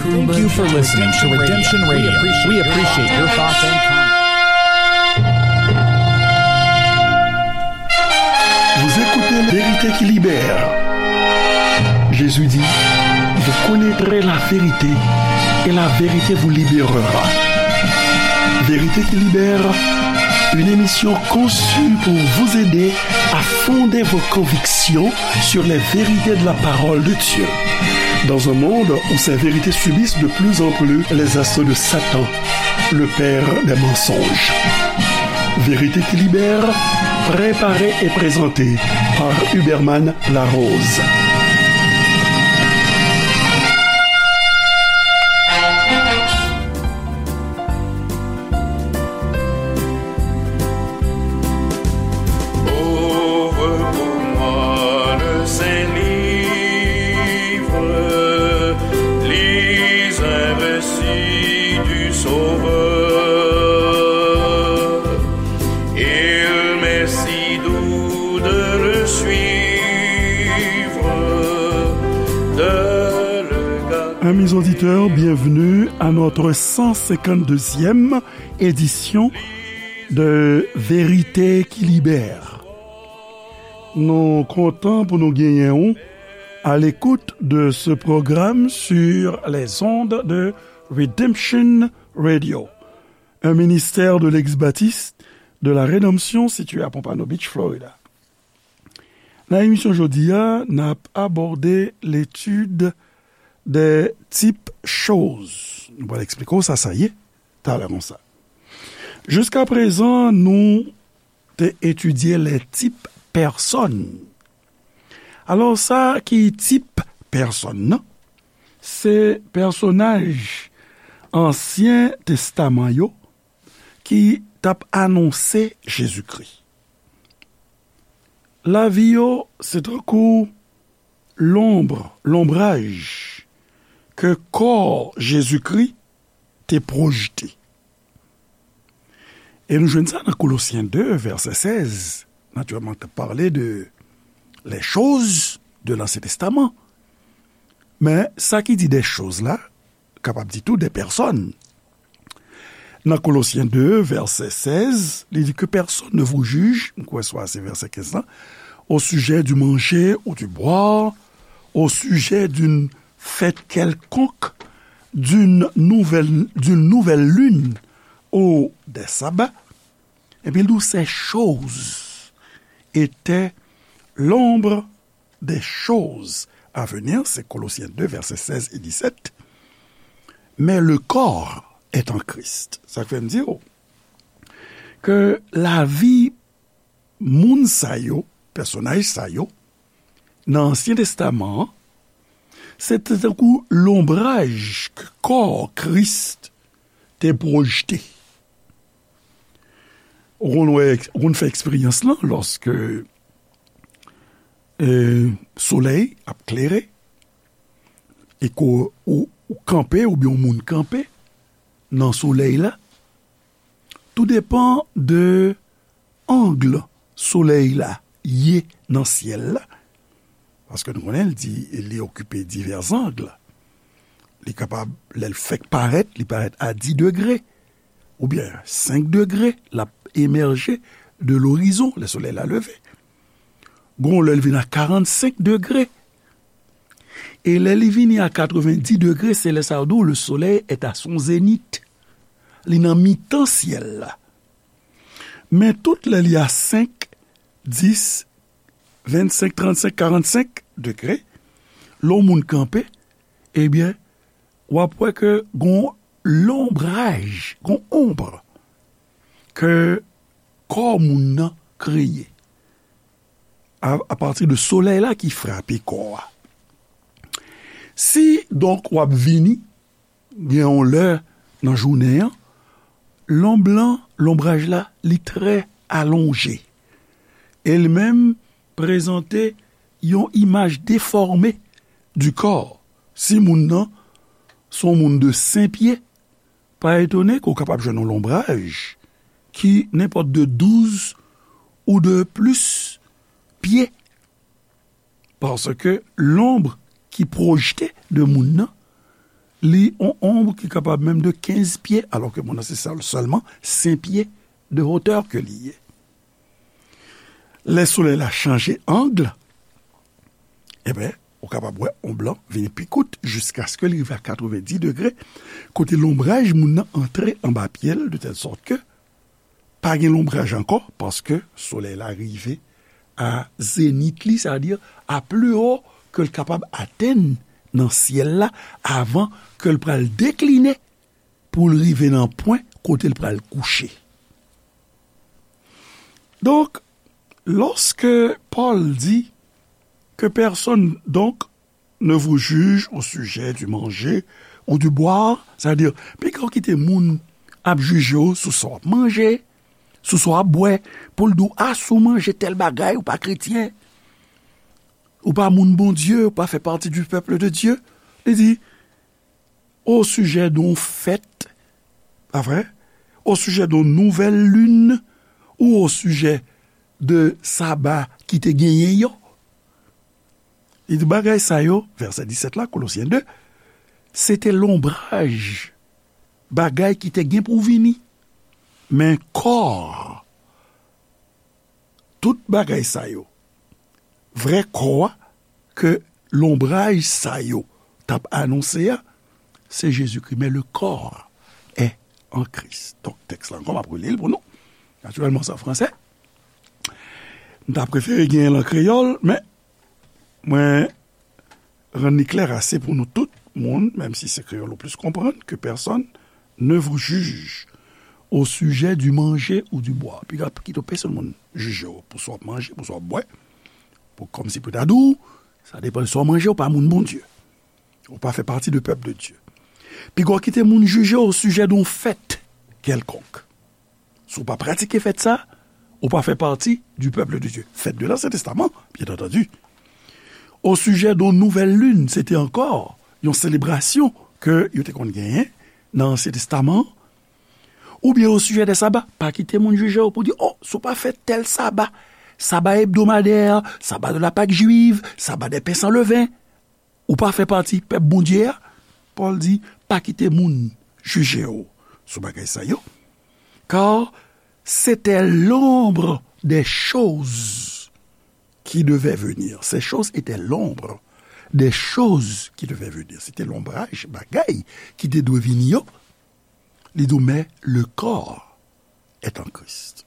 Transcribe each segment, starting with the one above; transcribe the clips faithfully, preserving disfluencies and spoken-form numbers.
Thank you for listening to Redemption Radio. We appreciate your thoughts and comments. Vous écoutez La vérité qui libère. Jésus dit, vous connaîtrez la vérité et la vérité vous libérera. Vérité qui libère, une émission conçue pour vous aider à fonder vos convictions sur les vérités de la parole de Dieu. Dans un monde où ces vérités subissent de plus en plus les assauts de Satan, le père des mensonges. Vérité qui libère, préparée et présentée par Huberman Larose. Ouvre pour moi le saint livre, lis un récit du Sauveur. Il m'est si doux de le suivre, de le garder. Amis auditeurs, bienvenue à notre cent cinquante-deuxième édition de Vérité qui Libère. Nou kontan pou nou genyen w à l'écoute de ce programme sur les ondes de Redemption Radio, un ministère de l'Eglise Baptiste de la Rédemption situé à Pompano Beach, Florida. Nan emisyon jodi a, n ap abòde l'étude des types choses. Nou pral eksplike w sa sa ye talè konsa. Jiskaprezan, nou te etidye les types personnes. Alò, sa ki tip pèsòn nan, se pèsonaj Ansyen Testaman yo ki t ap anonse Jezikri. Lavi yo se tankou lonb, lonbraj ke kò Jezikri te pwojte. E nou jwenn sa nan Kolosyen de, vèsè sèz. Natirèlman, te pale de les choses de l'Ancien Testament. Men, sa ki di des choses la, kapab di tou des personnes. Nan Kolosyen de, vèsè sèz, li di que personne ne vous juge, m kwè swa se vèsè kenz lan, au sujet du manger ou du boire, au sujet d'une fête quelconque, d'une nouvelle, d'une nouvelle lune ou des sabbats. Epi l di w, ces choses étaient l'ombre des choses à venir, se Kolosyen de, vèsè sèz e disèt, mais le corps est en Christ. Sa k fè m di w ke lavi moun sa yo, pèsonaj sa yo, nan Ansyen Testaman an, se te tankou lonbraj ke kò Kris te pwojte. Ou konn wè, ou konn fè eksperyans lan lòske, e, solèy ap klere e ke ou, ou kanpe oubyen yon moun kanpe nan solèy la. Tou depan de ang solèy la ye nan syèl la, paske nou konnen l di li okipe divè ang. Li kapab, lè l fèk parèt, li parèt a dis degre, oubyen senk degre, l ap emèje de lorizon, lè solèy la leve. Gon lè l vin a karannsenk degre. E lè li vini a katrevendis degre, se lè sa yo di w, le soleil est à son zénith. Li nan mitan syèl la. Men tout lè li a senk, dis, vennsenk, trannsenk, karannsenk degre, lè yon moun kanpe, ebyen, w ap wè ke gon lonbraj, gon onb ke kò moun nan kreye a, apati de solèy la ki frape kò a. Si, donk, w ap vini, gen yon lè nan jounen an, lonb lan, lonbraj la, li trè alonje. E li menm prezante yon imaj defòme du corps. Si moun nan se yon moun de senk pye, pa etone ke w kapab jwenn yon lonbraj ki nenpòt de douz ou de plis pye. Paske lonb ki pwojte de moun nan, li yon onb ki kapab menm de kenz pye, alò ke moun nan se sèl, sèlman senk pye de hotè ke li ye. Lè solèy la chanje ang, ebyen, ou kapab wè onb lan vini pi kout jiskaske li rive a katrevenndis degre, kote lonbraj moun nan antre anba pye l, de tèl sòt ke pa gen lonbraj ankò, paske solèy la rive a zenit li, sa vle di a pli wo ke l kapab atenn nan syèl la, avan ke l pral dekline pou l rive nan pwen kote l pral kouche. Donk, lòske Pòl di que personne donc ne vous juge au sujet du manger ou du boire, sa vle di, piga w kite moun ap jije w sou sa w ap manje, sou sa w ap bwè, pou l di w, a, si w manje tèl bagay, ou pa kretyen, ou pa moun Bondye, ou pa fè pati du peuple de Dieu. Li di, au sujet d'une fête, pa vre? Au sujet d'une nouvelle lune, ou au sujet de saba ki te genyen yo. Li di bagay sa yo, vèsè disèt la, Kolosyen de, se te lonbraj bagay ki te gen pou vini. Men kò, tout bagay sa yo, vrè kò a ke lonbraj sa yo t ap anonse a, se Jezikri. Men le corps est en Christ. Donk, tèks la ankò, m ap reli l pou nou. Natirèlman, se an fransè. M ta prefere genyen l an kreyòl, men mwen rann li klè ase pou nou tout moun, menm si se kreyòl ou plis konprann, que personne ne vous juge au sujet du manger ou du boire. Piga kite pèsonn moun jije w pou sa w ap manje, pou sa w ap bwè, pou kòmsi pou ta di w, sa depann sa w manje, ou pa moun Bondye. Ou pa fè pati de pèp de Dye. Piga w kite moun jije w au sujet d'une fête quelconque. Si w pa pratike fèt sa, ou pa fè pati du peuple de Dieu. Fête de l'Ancien Testament, bien entendu. Au sujet d'une nouvelle lune, se te ankò yon selebrasyon ke yo te konn genyen nan Ansyen Testaman. Oubyen au sujet des sabbats, pa kite moun jije w pou di, o, si w pa fè tèl saba, saba ebdomadè, saba de la Pâque juive, saba des pains sans levain, ou pa fè pati pèp Bondye a. Pòl di, pa kite moun jije w sou bagay sa yo. Car c'était l'ombre des choses qui devaient venir. Ces choses étaient l'ombre des choses qui devaient venir. Se te lonbraj bagay ki te dwe vini yo. Li di w, mais le corps est en Christ.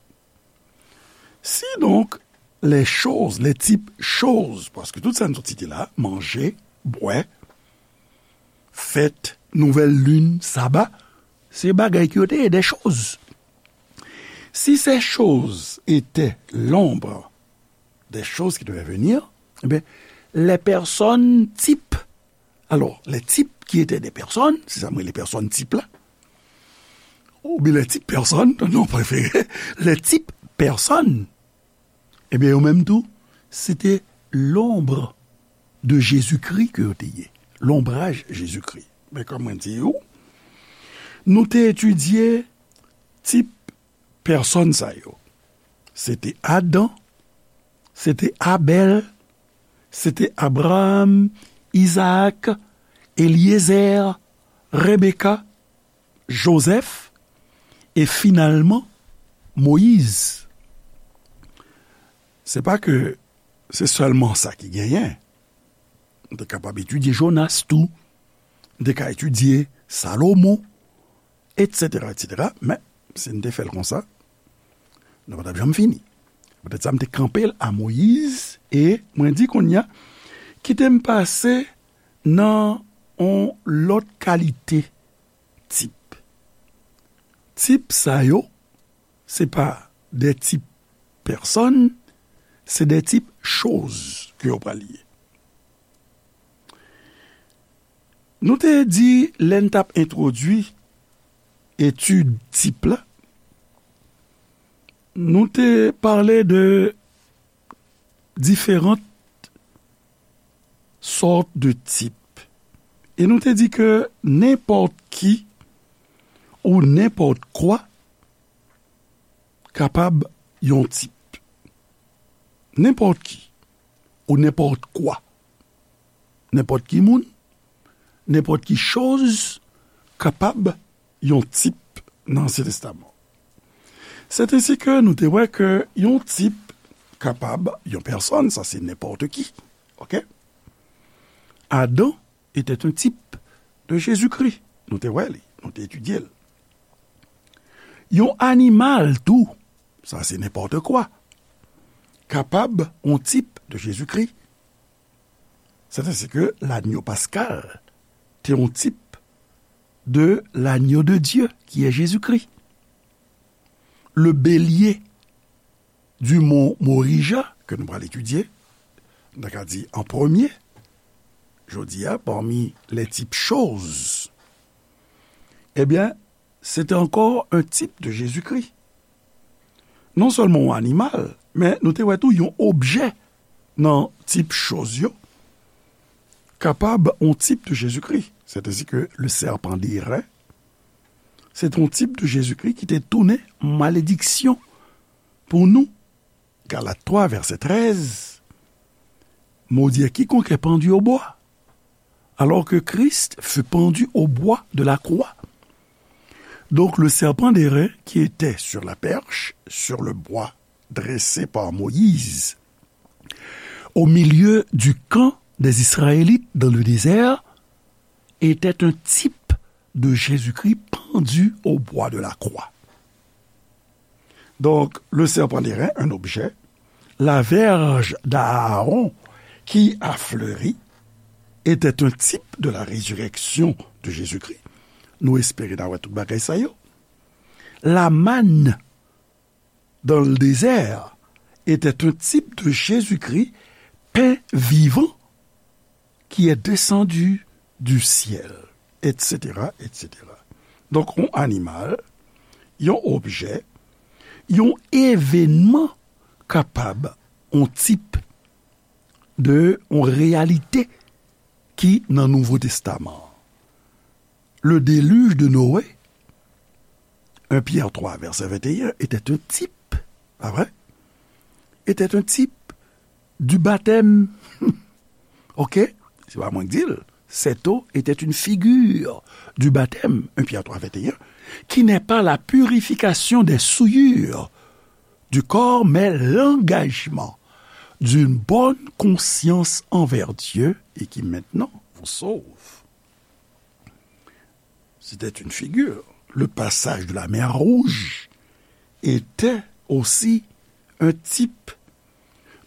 Si donc les choses, les types choses, paske tout sa n sot site la, manje, bwè, fèt, nouvèl lin, saba, se bagay ki yo te ye, des choses. Si ces choses étaient l'ombre des choses qui devaient venir, eh bien, les personnes types, alors, les types qui étaient des personnes, se sa m rele pèsòn tip la, oubyen les types personnes, non préféré, les types personnes, ebyen, yo menm tou, se te l'ombre de Jésus-Christ ke yo te ye. Lonbraj Jezikri. Men kòm mwen di w, nou te etidye tip pèsòn sa yo. Se te Adan, se te Abèl, se te Abraram, Izaak, Elyezè, Rebeka, Jozèf, e finalman, Moyiz. Se pa ke se sèlman sa ki genyen. Nou te kapab etidye Jonas tou. Nou te ka etidye Salomon, etsetera, etsetera. Men, si n te fè l konsa, nou pa t ap janm fini. Poutèt sa, m te kanpe l a Moyiz, e mwen di kounye a, kite m pase nan yon lòt kalite tip. Tip sa yo, se pa de tip pèsòn, se de tip choz ke yo pral ye. Nou te di, lè n t ap entwodui etid tip la, nou te pale de diferan sòt de tip. E nou te di ke nenpòt ki ou nenpòt kwa kapab yon tip. Nenpòt ki ou nenpòt kwa. Nenpòt ki moun, Nenpòt ki choz kapab yon tip nan Ansyen Testaman. Sètensi ke nou te wè ke yon tip kapab yon pèsòn, sa se nenpòt ki. Oke? Adam était un type de Jésus-Christ. Nou te wè li, nou te etidye l. Yon animal tou, sa se nenpòt kwa, kapab yon tip de Jezikri. Sètensi ke lanyo paskal te yon tip de lanyo de Dye, ki è Jezikri. Le bélier du mont Morija, ke nou pral etidye, nou ta ka di an premye, jodi a, pami lè tip choz, ebyen, se te ankò yon tip de Jezikri. Non sèlman yon animal, men nou te wè tou yon objè nan tip choz yo, kapab yon tip de Jezikri. Sètensi ke le serpent d'airain, se te yon tip de Jezikri ki te tounen malediksyon pou nou. Galat twa, vèsè trèz, Maudit est quiconque est pendu au bois, alors que Christ fut pendu au bois de la croix. Donc le serpent d'airain qui était sur la perche, sur le bois dressé par Moïse, au milieu du camp des Israélites dans le désert, était un type de Jésus-Christ pendu au bois de la croix. Donc, le serpent d'airain, un objet, la verge d'Aaron qui a fleuri, était un type de la résurrection de Jésus-Christ. Nou espere n a wè tout bagay sa yo. La manne dans le désert était un type de Jésus-Christ, pain vivant, qui est descendu du ciel, et cetera, et cetera. Donk, yon animal, yon objè, yon evènman kapab yon tip de yon reyalite ki nan Nouvo Testaman. Le déluge de Noé, un Pierre trois, verset vingt et un, était un type, pas vrai? Était un type du baptême. Ok? Se pa mwen k di l. Cette eau était une figure du baptême, un Pierre trois, vingt et un, qui n'est pas la purification des souillures du corps, mais l'engagement d'une bonne conscience envers Dieu et qui maintenant vous sauve. C'était une figure. Le passage de la mer Rouge était aussi un type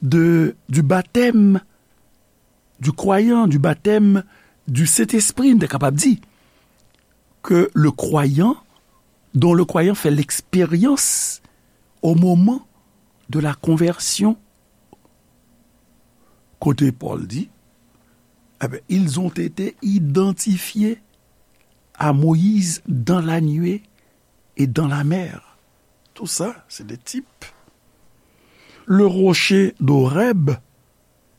de, du baptême du croyant, du baptême du Saint-Esprit, nou ta kapab di, que le croyant, dont le croyant fait l'expérience au moment de la conversion. Kote Pòl di, eh ben, ils ont été identifiés à Moïse dans la nuée et dans la mer. Tout ça, c'est des types. Le rocher d'Horeb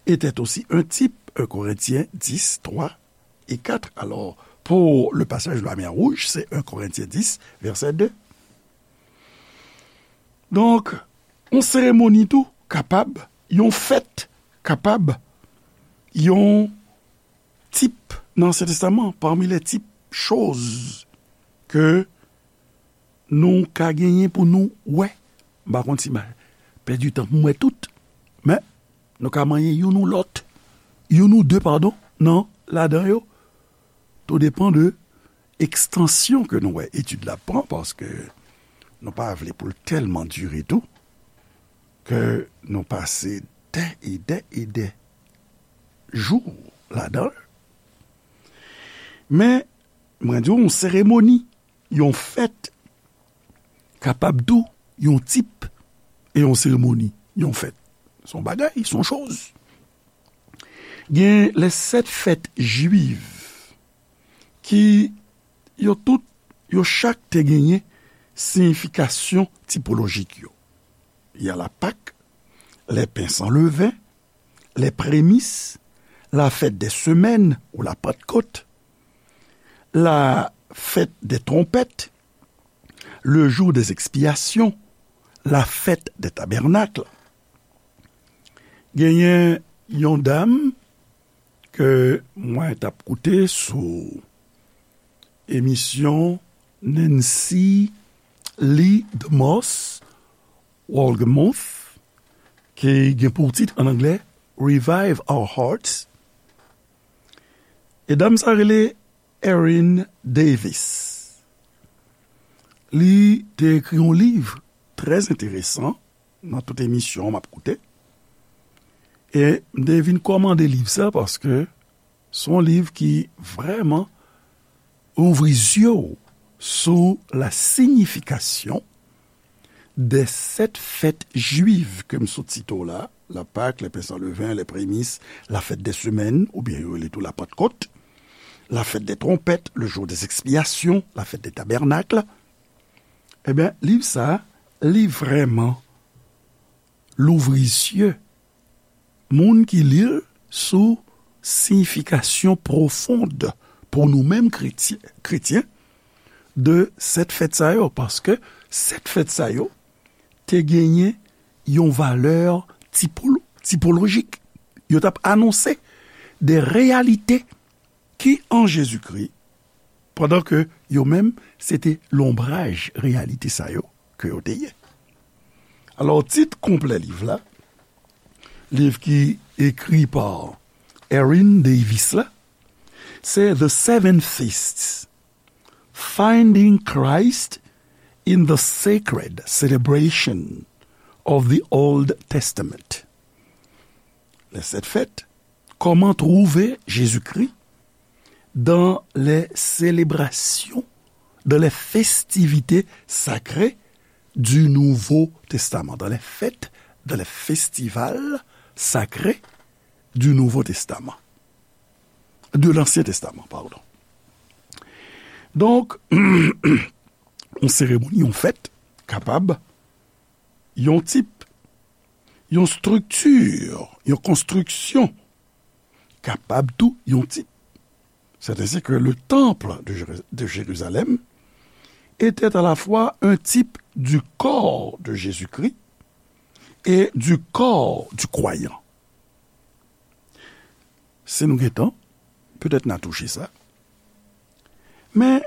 était aussi un type, un Corinthiens dix, trois et quatre. Alors, pour le passage de la mer Rouge, c'est un Corinthiens dix, verset deux. Donk, yon seremoni tou kapab, yon fèt kapab, yon tip nan Ansyen Testaman, pami lè tip choz ke nou ka genyen pou nou wè. M pa konn si m a pèdi tan pou m wè tout, men nou ka manyen youn ou lòt, youn ou de, padon, nan ladan yo. Tou depan de ekstansyon ke nou wè etid la pran, paske nou pa vle pou l tèlman dire tou, ke nou pase dè e dè e dè jou ladan l. Men, mwen di w, yon seremoni, yon fèt, kapab tou yon tip e yon seremoni, yon fèt. Se yon bagay, se yon choz. Gen lè sèt fèt jwiv ki yo tout, yo chak te genyen siyifikasyon tipolojik yo. Il y a la Pâque, les pains sans levain, les prémices, la fête des semaines ou la Pentecôte, la fête des trompettes, le jour des expiations, la fête des tabernacles. Genyen yon dam ke mwen t ap koute sou emisyon Nancy Lee DeMoss Wolgemuth, ki gen pou tit an anglè Revive Our Hearts. E dam sa rele Erin Davis. Li te ekri yon liv trè enteresan nan tout emisyon m ap koute. E m te vin kòmande liv sa paske se yon liv ki vrèman ouvri zye w sou la signification des sept fêtes juives ke m sot site w la, la Pâque, les pains sans levain, les prémices, la fête des semaines, oubyen yo rele tou la Pentecôte, la fête des trompettes, le jour des expiations, la fête des tabernacles. Ebyen, liv sa, li vrèman louvri zye moun ki li l sou siyifikasyon pwofon pou nou menm kretyen, kretyen de sèt fèt sa yo, paske sèt fèt sa yo te genyen yon valè tipolo-, tipolojik. Yo t ap anonse de reyalite ki an Jezikri, pandan ke yo menm, se te lonbraj reyalite sa yo ke yo te ye. Alò, tit konplè liv la, liv ki ekri pa Erin Davis la, se The Seven Feasts, Finding Christ in the Sacred Celebration of the Old Testament. Les sept fêtes, comment trouver Jésus-Christ dans les célébrations, dans les festivités sacrées du Nouveau Testament, dans les fêtes, dans les festivals sacrés du Nouveau Testament, de l'Ancien Testament, pardon. Donk, yon seremoni, yon fèt, kapab yon tip, yon estrikti, yon konstriksyon, kapab tou yon tip. C'est ainsi que le temple de Jéru-, de Jérusalem était à la fois un type du corps de Jésus-Christ et du corps du croyant. Si nou gen tan, petèt n a touche sa. Men,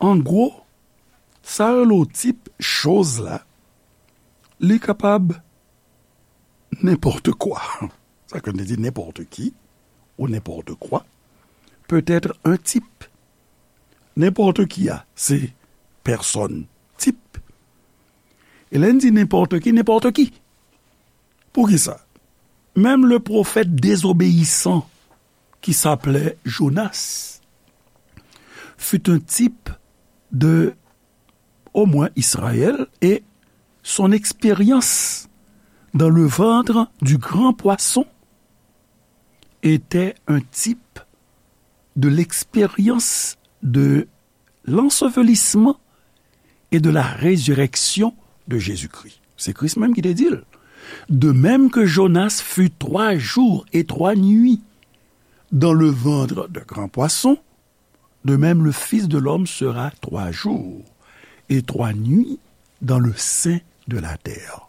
an gwo, sa yo rele w tip choz la, li kapab nenpòt kwa. Sa ke n te di nenpòt ki, ou nenpòt kwa, peut être un type. Nenpòt ki a, se pèsòn tip. E lè n di nenpòt ki, nenpòt ki. Poukisa? Menm le pwofèt dezobeyisan qui s'appelait Jonas fut un type de, au moins, Israël et son expérience dans le ventre du grand poisson était un type de l'expérience de l'ensevelissement et de la résurrection de Jésus-Christ. Se Kris menm ki te di l. De même que Jonas fut trois jours et trois nuits dans le ventre de grand poisson, de même le Fils de l'homme sera trois jours et trois nuits dans le sein de la terre.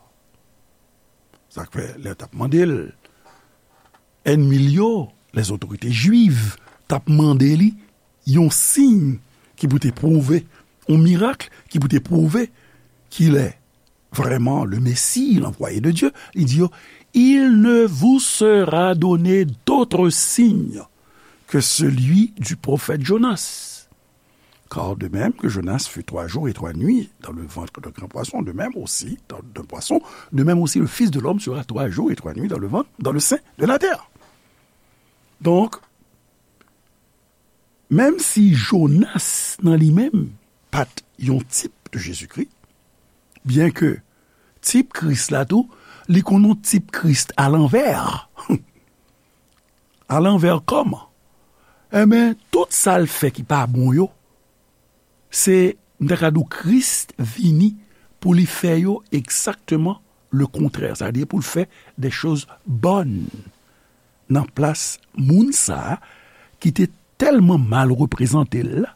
Sa k fè, lè yo t ap mande l, ènmi l yo, les autorités juives, t ap mande li yon siy ki pou te pwouve, yon mirak ki pou te pwouve qu'il est vraiment le Messie, l'envoyé de Dieu, li di yo, il ne vous sera donné d'autre signe que celui du prophète Jonas. Car de même que Jonas fut trois jours et trois nuits dans le ventre d'un grand poisson, de même aussi, dans, d'un poisson, de même aussi le Fils de l'homme sera trois jours et trois nuits dans le ventre, dans le sein de la terre. Donk, menm si Jonas nan li menm pa t yon tip de Jezikri, byen ke tip Kris la tou, li konn yon tip Kris alanvè. Alanvè kòman? Enben, tout sa l fè ki pa bon yo, se, m ta ka di w, Kris vini pou li fè yo egzakteman le kontrè, sa vle di pou l fè des choses bonnes nan plas moun sa a ki te tèlman mal reprezante l la.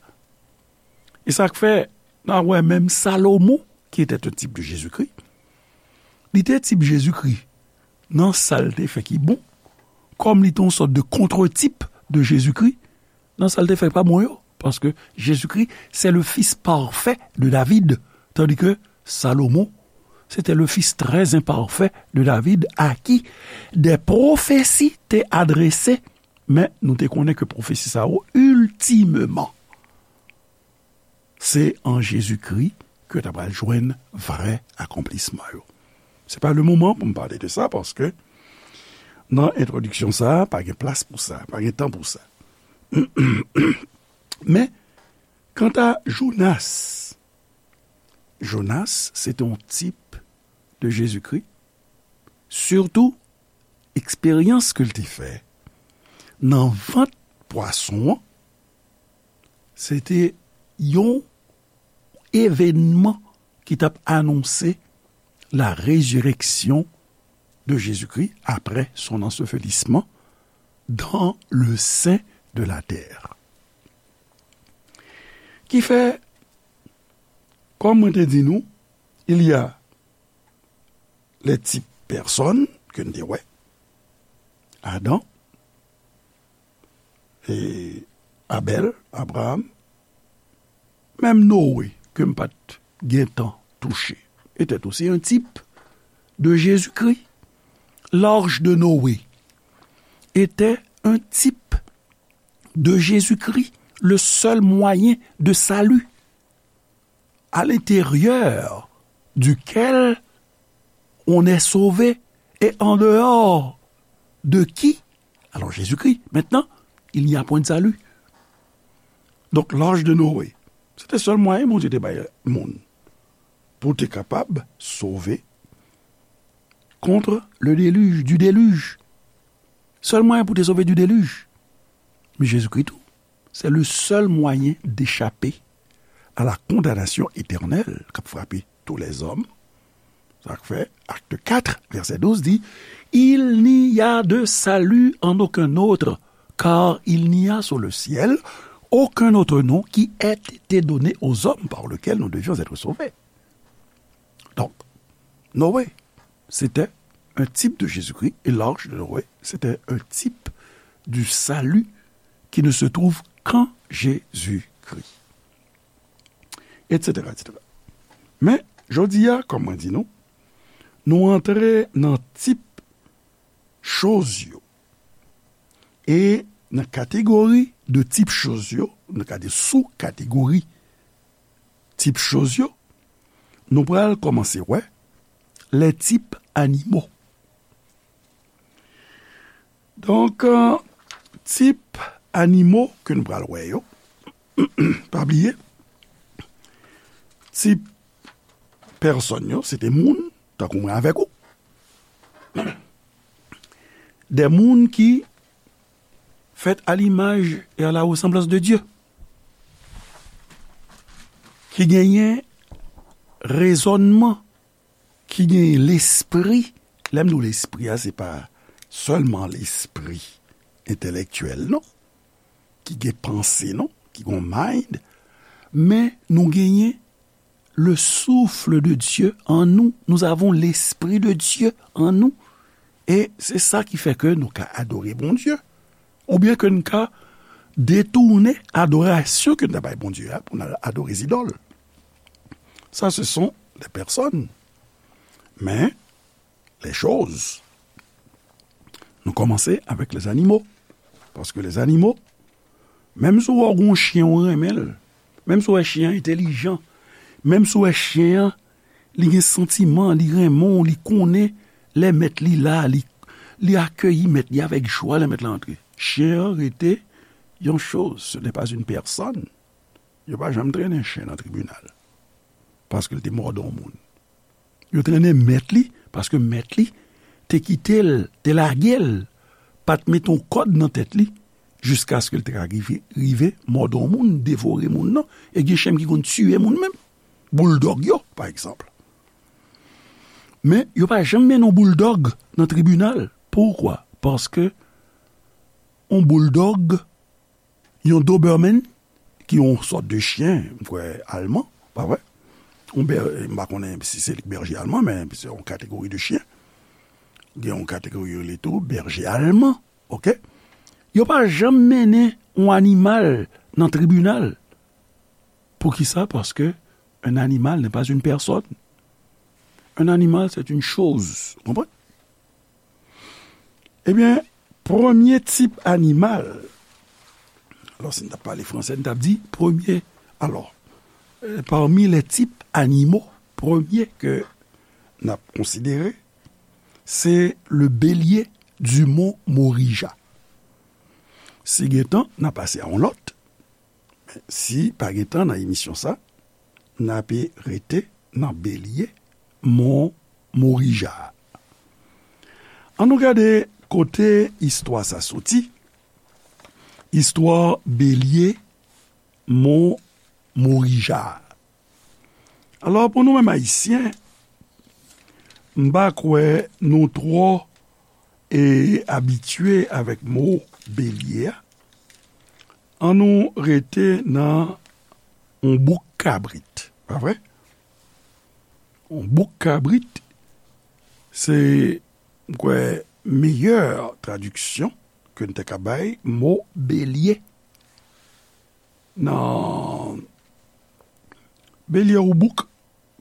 E sa k fè, n a wè menm Salomon, qui était un type de Jésus-Christ, li te tip Jezikri nan sa l te fè ki bon, kòm li te yon sòt de kontretip de Jezikri nan sa l te fè pa bon yo. Paske Jezikri, c'est le fils parfait de David, tandis que Salomon, c'était le fils très imparfait de David, à qui des prophéties te adressées, men nou te konnen ke pwofesi sa yo, iltimeman, se an Jezikri ke ta pral jwenn vrè akonplisman yo. Se pa le moman pou m pale de sa, paske nan entwodiksyon sa a, pa gen plas pou sa, pa gen tan pou sa. Men, kanta Jonas, Jonas, se te yon tip de Jezikri, sitou eksperyans ke l te fè nan vant pwason an, se te yon evènman ki t ap anonse la résurrection de Jésus-Christ après son ensevelissement dans le sein de la terre. Ki fè, kòm mwen te di nou, il y a les types personnes ke n te wè, Adan, e Abèl, Abraram, menm Noe, ke m pa t gen tan touche, était aussi un type de Jésus-Christ. L'arche de Noé était un type de Jésus-Christ, le seul moyen de salut à l'intérieur duquel on est sauvé et en dehors de qui, alors Jésus-Christ, maintenant, il n'y a point de salut. Donc, l'arche de Noé, se te sèl mwayen Bondye te bay moun pou te kapab sove contre le déluge, du déluge. Sèl mwayen pou te sove du déluge. Men Jezikri tou, c'est le seul moyen d'échapper à la condamnation éternelle k ap frape tous les hommes. Sa k fè, Acte quatre, verset douze di, il n'y a de salut en aucun autre, car il n'y a sous le ciel aucun autre nom qui ait été donné aux hommes par lequel nous devions être sauvés. Donc, Noé, c'était un type de Jésus-Christ, et l'arche de Noé, c'était un type du salut qui ne se trouve qu'en Jésus-Christ, et cetera, et cetera. Men, jodi a, kòm mwen di nou, nou antre nan tip choz yo. E nan kategori de tip choz yo, nan ka di sou kategori tip choz yo, nou pral kòmanse wè les types animaux. Donk, euh, tip animo ke nou pral wè yo, pa bliye, tip pèsòn yo, se te moun, tankou mwen avèk ou. Des moun ki fèt à l'image et à la ressemblance de Dieu, ki genyen rezònman, ki genyen lespri. Lè m di w lespri a, se pa sèlman lespri entèlektyèl, non, ki gen panse, non, ki gen mind, men nou genyen le souffle de Dieu en nous. Nous avons l'Esprit de Dieu en nous. E se sa ki fè ke nou ka adore Bondye. Oubyen ke n ka detounen adorasyon ke n ta bay Bondye a pou n al adore zidòl. Ça, ce sont les personnes. Men, les choses. Nou kòmanse avèk les animaux. Paske les animaux, menm si w wè w gen yon chen ou renmen l, menm si w wè chen an entèlijan, menm si w wè chen an, li gen santiman, li renmen w, li konnen lè mèt li la, li, li akeyi mèt li avèk jwa lè mèt la antre. Chen an rete yon choz, ce n'est pas une personne. Yo pa janm trennen chen nan tribinal paske l te mòde yon moun. Yo trennen mèt li paske mèt li te kite l, te lage l, pa t mete yon kòd nan tèt li, jiskaske l te ka rive, rive mòde yon moun, devore moun nan, e gen chen ki konn tiye moun menm. Bouldòg yo, pa egzanp. Men, yo pa janm mennen yon bouldòg nan tribinal. Poukwa? Paske yon bouldòg, yon Doberman, ki yon sòt de chen, m kwè, alman, pa vre? Yon bè-, m pa konnen si se li k bèje alman, men se yon kategori de chen. Gen yon kategori yo rele tou bèje alman. Oke? Yo pa janm mennen yon animal nan tribinal. Poukisa? Paske un animal n'est pas une personne. Un animal, c'est une chose. Ou konprann? Ebyen, premye tip animal, alò, si n t ap pale franse, n t ap di premye, alò, euh, parmi les types animaux, premye ke n ap konsidere, se le bélier du mont Morija. Si gen tan, n a pase a yon lòt. Si pa gen tan nan emisyon sa, n ape rete nan belye Mont Morija. Ann nou gade kote istwa sa soti. Istwa belye Mont Morija. Alò, pou nou menm Ayisyen, m pa kwè nou twò e abitye avèk mo belye a. Ann nou rete nan yon bouk kabrit, pa vre? Yon bouk kabrit, se, m kwè, meyè tradiksyon ke n te ka bay mo belye. Nan belye ou bouk,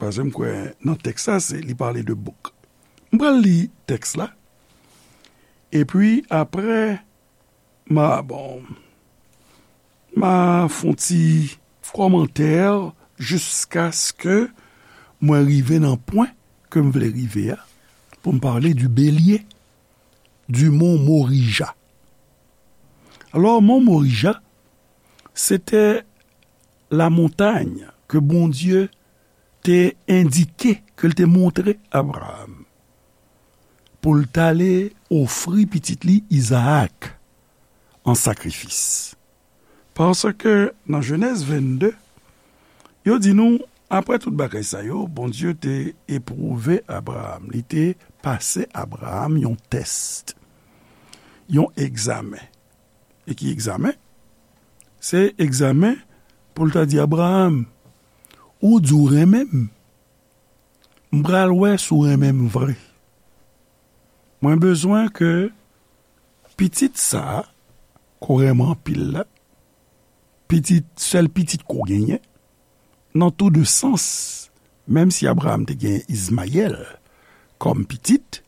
paske m kwè nan tèks la, se, li pale de bouk. M pral li tèks la, epi apre, m a, bon, m a fè yon ti kòmantè jiskaske mwen rive nan pwen ke m vle rive a, pou m pale du bélier du mont Morija. Alò, mont Morija, se te la montagne ke Bondye te endike, ke l te montre Abraram, pou l t ale ofri pitit li Izaak an sakrifis. Paske nan Jenèz vennde, yo di nou, apre tout bagay sa yo, Bondye te epwouve Abraram. Li te pase Abraram yon tès, yon egzamen. E ki egzamen? Se egzamen pou l ta di Abraram, ou di w renmen m. M pral wè si w renmen m vre. Mwen bezwen ke pitit sa a, ke w renmen anpil la, pitit, sèl pitit ke w genyen, nan tou de sans, menm si Abraram te genyen Izmayèl kòm pitit,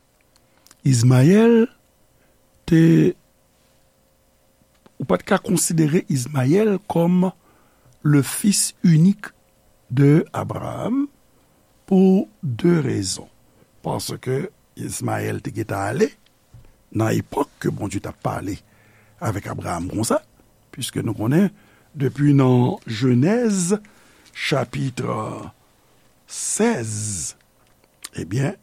Izmayèl te, ou pa t ka konsidere Izmayèl kòm le fils unique de Abraham pou de rezon. Paske Izmayèl te gentan ale nan epòk ke Bondye t ap pale avèk Abraham konsa, piske nou konnen depi nan Jenèz chapit sèz, ebyen,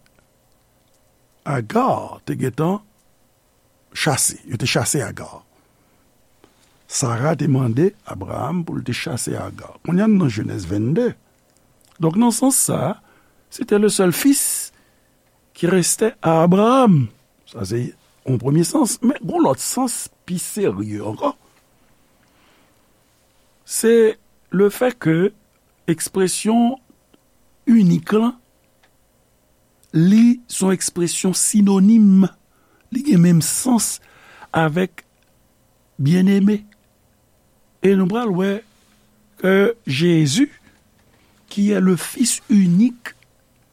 Aga te gentan chase. Yo te chase Aga. Sara te mande Abraham pou l te chase Aga. Kounye a n nan Jenèz vennde. Donk, nan sans sa, se te le sèl fis ki reste a Abraham. Sa se yon premye sans. Men gon lòt sans pi serye ankò. Se le fè ke ekspresyon inik lan, li se yon ekspresyon sinonim. Li gen menm sans avèk byeneme. E nou pral wè ke Jezi, qui est le Fils unique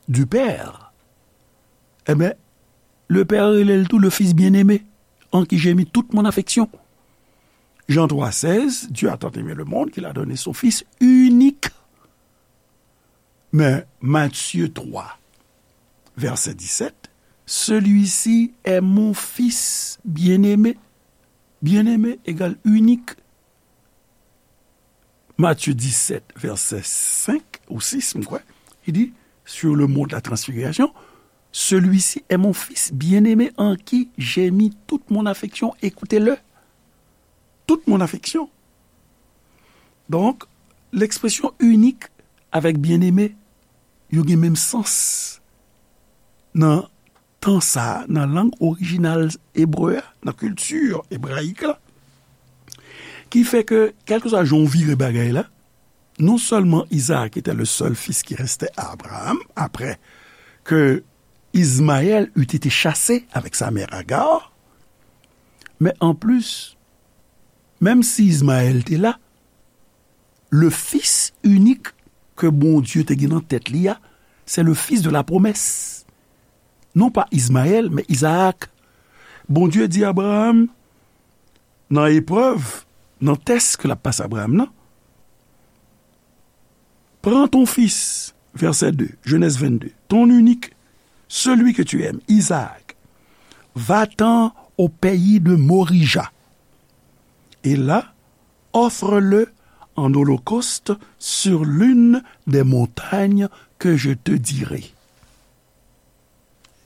du Père, ebyen, le Père rele l tou le Fils bien-aimé, en qui j'ai mis toute mon affection. Jean trois seize, Dieu a tant aimé le monde qu'il a donné son Fils unique. Men Matye twa, vèsè disèt, celui-ci est mon Fils bien-aimé. Bien-aimé egal inik. Matye disèt, vèsè senk ou sis, m kwè, li di, sur le mont de la transfiguration, celui-ci est mon Fils bien-aimé en qui j'ai mis toute mon affection, écoutez-le. Toute mon affection. Donk, lekspresyon inik avèk byeneme, yo gen menm sans nan tan sa a, nan lang orijinal ebre a, nan kilti ebrayik la. Ki fè ke, kèlkeswa jan w vire bagay la, non seulement Isaac était le seul fils qui restait à Abraham, après que Ismaël eut été chassé avec sa mère Agar, Men anplis, menm si Izmayèl te la, le fils unique ke Bondye te gen nan tèt li a, c'est le fils de la promesse. Non pa Izmayèl, men Izaak. Bondye di Abraram, nan eprèv, nan tès ke l ap pase Abraram nan, prends ton fils, verset deux, Genèse vingt-deux, ton unique, celui que tu aimes, Isaac, va-t'en au pays de Morija, et là, offre-le en holocauste sur l'une des montagnes que je te dirai.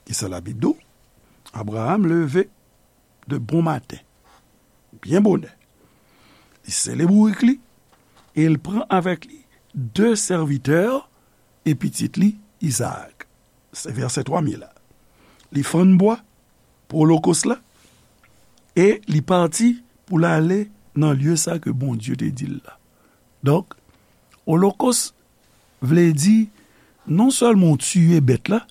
Kisa Labib di w? Abraram leve de bon maten, byen bonè. Li sele bourik li e l pran avèk li de sèvitè e pitit li Izaak. Se vèsè twa mil la. Li fann bwa pou olokos la e li pati pou l ale nan lye sa ke Bondye te di l la. Donk, olokos vle di non sèlman w tiye bèt la,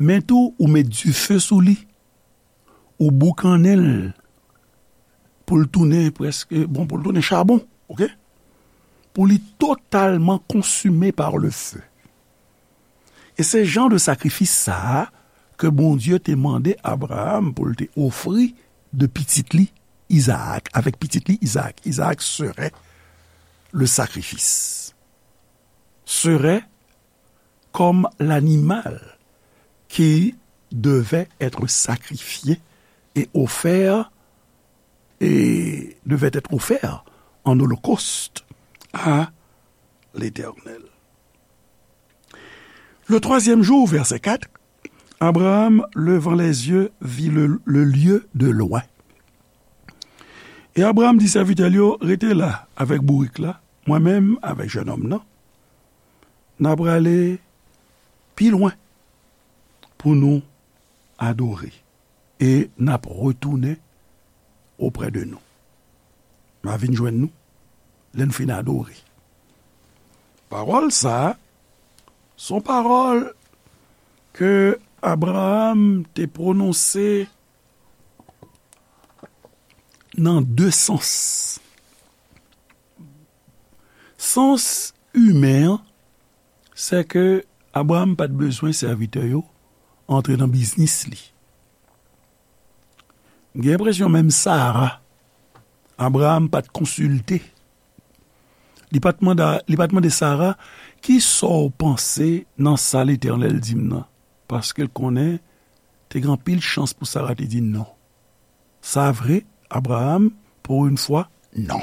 men tou ou met dife sou li, ou boukannen l pou l tounen prèske, bon, pou l tounen chabon, oke? Pou li totalman konsime pa le fe. E se jan de sakrifis sa a ke Bondye te mande Abraram pou l te ofri de pitit li Izaak, avèk pitit li Izaak. Izaak serait le sacrifice. Serait comme l'animal qui devait être sacrifié et offert, et devait être offert en holocauste à l'Éternel. Le troisième jour, verset quatre, Abraham, levant les yeux, vit le, le lieu de loin. E Abraham di sèvitè l yo, rete la avèk bourik la, mwen menm avèk jènòm nan, n a prale pi lwen pou nou adore e n ap retounen oprè de nou. M a vin jwenn nou lè n fin adore. Pawòl sa a, se yon pawòl ke Abraham te pwononse nan de sans. Sans imen an, se ke Abraham pa t bezwen sèvitè yo antre nan biznis li. M gen enpresyon menm Sara, Abraham pa t konsilte. Li pa t mande, li pa t mande Sara, "Kisa w panse nan sa Letènèl di m nan?" Paske l konnen te gen anpil chans pou Sara te di non. Sa vre, Abraham, pour une fois, non.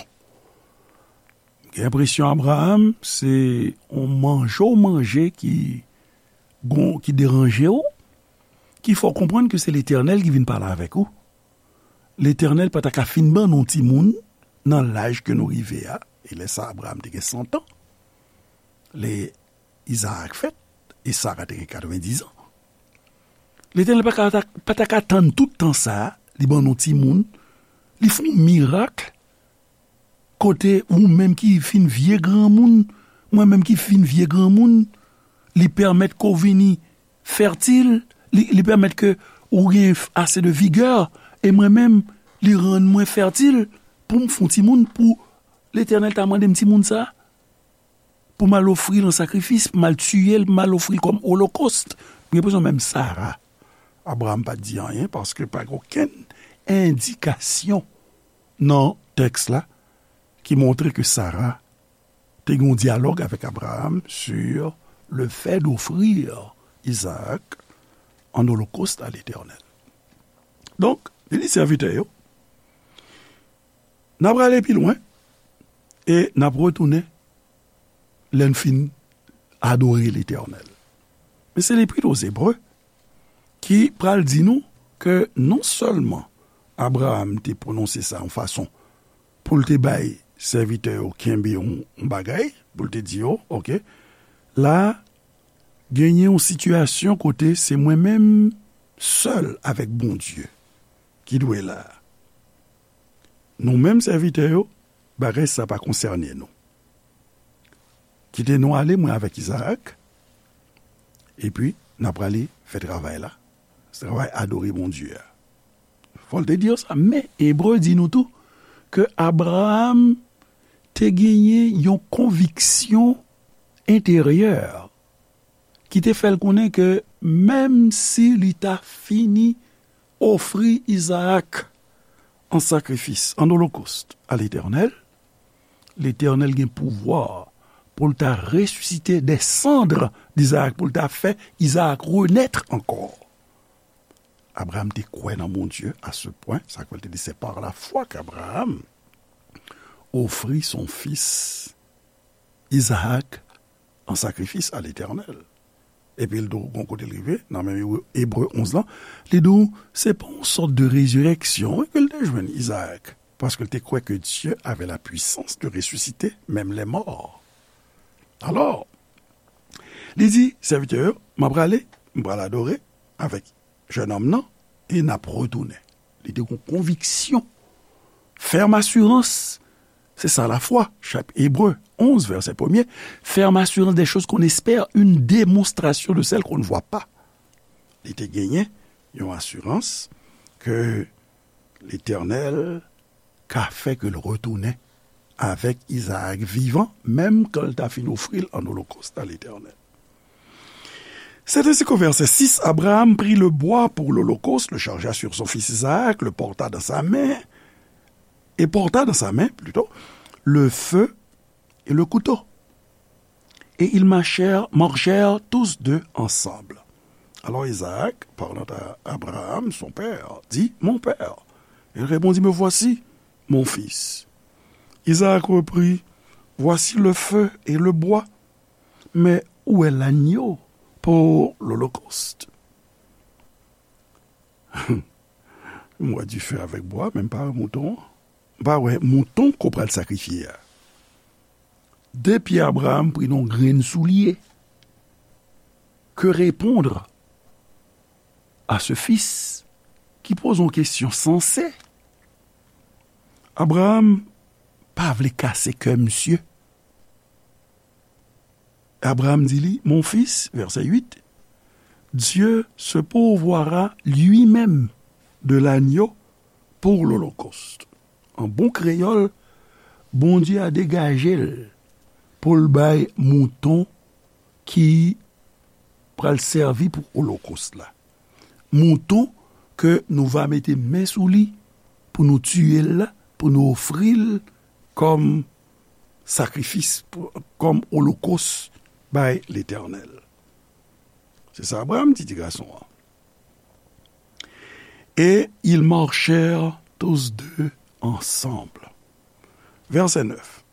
Gen enpresyon Abraham, se yon manje w manje ki, gon, ki deranje w, ki fè w konprann ke se Letènèl ki vin pale avèk ou. Letènèl pa ta ka fin ban nou timoun nan laj ke nou rive a, e lè sa Abraham te gen san tan. Lè Izaak fèt, e Sara te gen katrevendiz an. Letènèl pa ka, pa ta ka tann tout tan sa a, li ban nou timoun, li fè yon mirak, kote ou menm ki fin vye granmoun, mwen menm ki fin vye granmoun, li pèmèt ke w vini fètil, li, li pèmèt ke ou gen ase de vigè, e mwen menm, li rann mwen fètil pou m fè yon timoun, pou Letènèl ta mande m timoun sa a, pou m al ofri l an sakrifis, pou m al tiye l, pou m al ofri l kòm olokòs. M gen enpresyon menm Sara, Abraham pa t di anyen, paske pa gen okenn endikasyon nan tèks la ki montre ke Sara te gen yon dyalòg avèk Abraham sur le fait d'offrir Isaac en holocauste à l'Éternel. Donk, li di sèvitè yo, n a prale pi lwen e n ap retounen lè n fin adore Letènèl. Men se Lepit o Ebre ki pral di nou ke non sèlman Abraham te pwononse sa yon fason pou l te bay sèvitè yo kenbe yon, yon bagay, pou l te di yo, oke, la, genyen yon sitiyasyon kote se mwen menm sèl avèk Bondye ki dwe la. Nou menm sèvitè yo, bagay sa pa konsène nou. Kite nou ale, mwen avèk Izaak, epi n a prale fè travay la. Se travay adore Bondye a. Fò l te di yo sa. Men, Ebre di nou tou ke Abraram te genyen yon konviksyon enteryè ki te fè l konnen ke menm si li ta fini ofri Izaak an sakrifis, an olokòst a Letènèl, Letènèl gen pouvwa pou l ta resisite des cendres d'Isaac, pou l ta fè Izaak renèt ankò. Abraram te kwè nan Bondye à ce point, sa k fè l te di, c'est par la foi qu'Abraham offrit son fils Isaac en sacrifice à l'Éternel. Epi l di w, gon kote l rive, nan menm Ebre, Ebre onz lan, li di w, se pa yon sòt de rezirèksyon, wi, ke l te jwenn Izaak, paske l te kwè ke Dieu avait la puissance de ressusciter même les morts. Alò, li di sèvitè yo, m ap prale, m pral adore avèk jennonm nan, e n ap retounen. Li te gen yon konviksyon, ferme assurance, c'est ça la foi, chapitre Hébreux onze, verset premier, ferme assurance des choses qu'on espère, une démonstration de celles qu'on ne voit pas. Li te genyen yon asirans ke Letènèl ka fè ke l retounen avèk Izaak vivan, menm kan l ta fin ofri l an olokòst a Letènèl. C'est ainsi qu'au verset six, Abraham prit le bois pour l'holocauste, le chargea sur son fils Isaac, le porta dans sa main, et porta dans sa main, plutôt, le feu et le couteau. Et ils marchèrent, marchèrent tous deux ensemble. Alors Isaac, parlant à Abraham, son père, dit, mon père. Il répondit, me voici, mon fils. Isaac reprit, voici le feu et le bois, mais où est l'agneau pour l'holocauste? M wè dife avèk bwa, men m pa wè mouton an. M pa wè mouton ke w pral sakrifye a. Depi Abraram pran yon grenn soulye, que répondre à ce fils qui pose yon kesyon sanse? Abraram pa vle kase kè misye. Abraram di li, mon fils, verset huit, Dieu se pourvoira lui-même de l'agneau pour l'holocauste. An bon kreyòl, Bondye a degaje l pou l bay mouton ki pral sèvi pou olokòst la. Mouton ke nou va mete men sou li pou nou tiye l la, pou nou ofri l kòm sakrifis, pou, kòm olokòst bay Letènèl. Se sa Abraram di ti gason an. Et ils marchèrent tous deux ensemble. Verset neuf.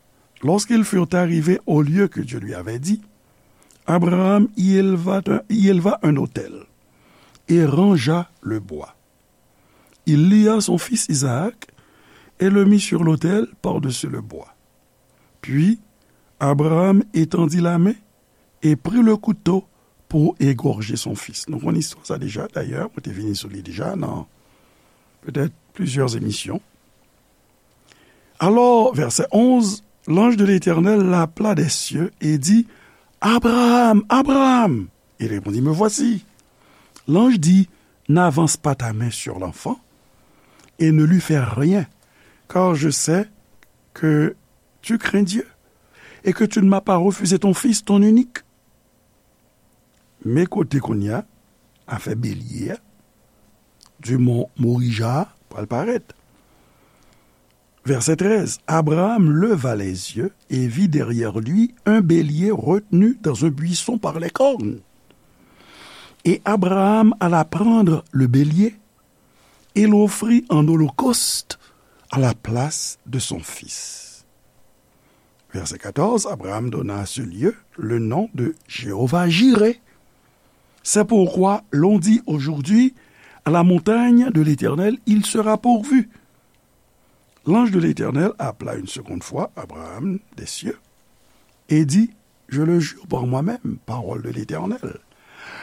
Lorsqu'ils furent arrivés au lieu que Dieu lui avait dit, Abraham y éleva un, y éleva un autel et rangea le bois. Il lia son fils Isaac et le mit sur l'autel par-dessus le bois. Puis Abraham étendit la main et prit le couteau pour égorger son fils. Nou konn istwa sa deja, dayè, mwen te vini sou li deja nan petèt plizyè emisyon. Alors, verset onze, l'ange de l'Éternel l'appela des cieux et dit, Abraham, Abraham! Il répondit, me voici. L'ange dit, n'avance pas ta main sur l'enfant et ne lui fais rien, car je sais que tu crains Dieu et que tu ne m'as pas refusé ton fils, ton unique. Men kote kounye a, afè belye a, du mont Morija pral parèt. Verset treize, Abraham leva les yeux et vit derrière lui un bélier retenu dans un buisson par les cornes. Et Abraham alla prendre le bélier et l'offrit en holocauste à la place de son fils. Verset quatorze, Abraham donna à ce lieu le nom de Jéhovah-Jiré. C'est pourquoi l'on dit aujourd'hui, à la montagne de l'Éternel, il sera pourvu. L'ange de l'Éternel appela une seconde fois Abraham des cieux et dit, je le jure par moi-même, parole de l'Éternel,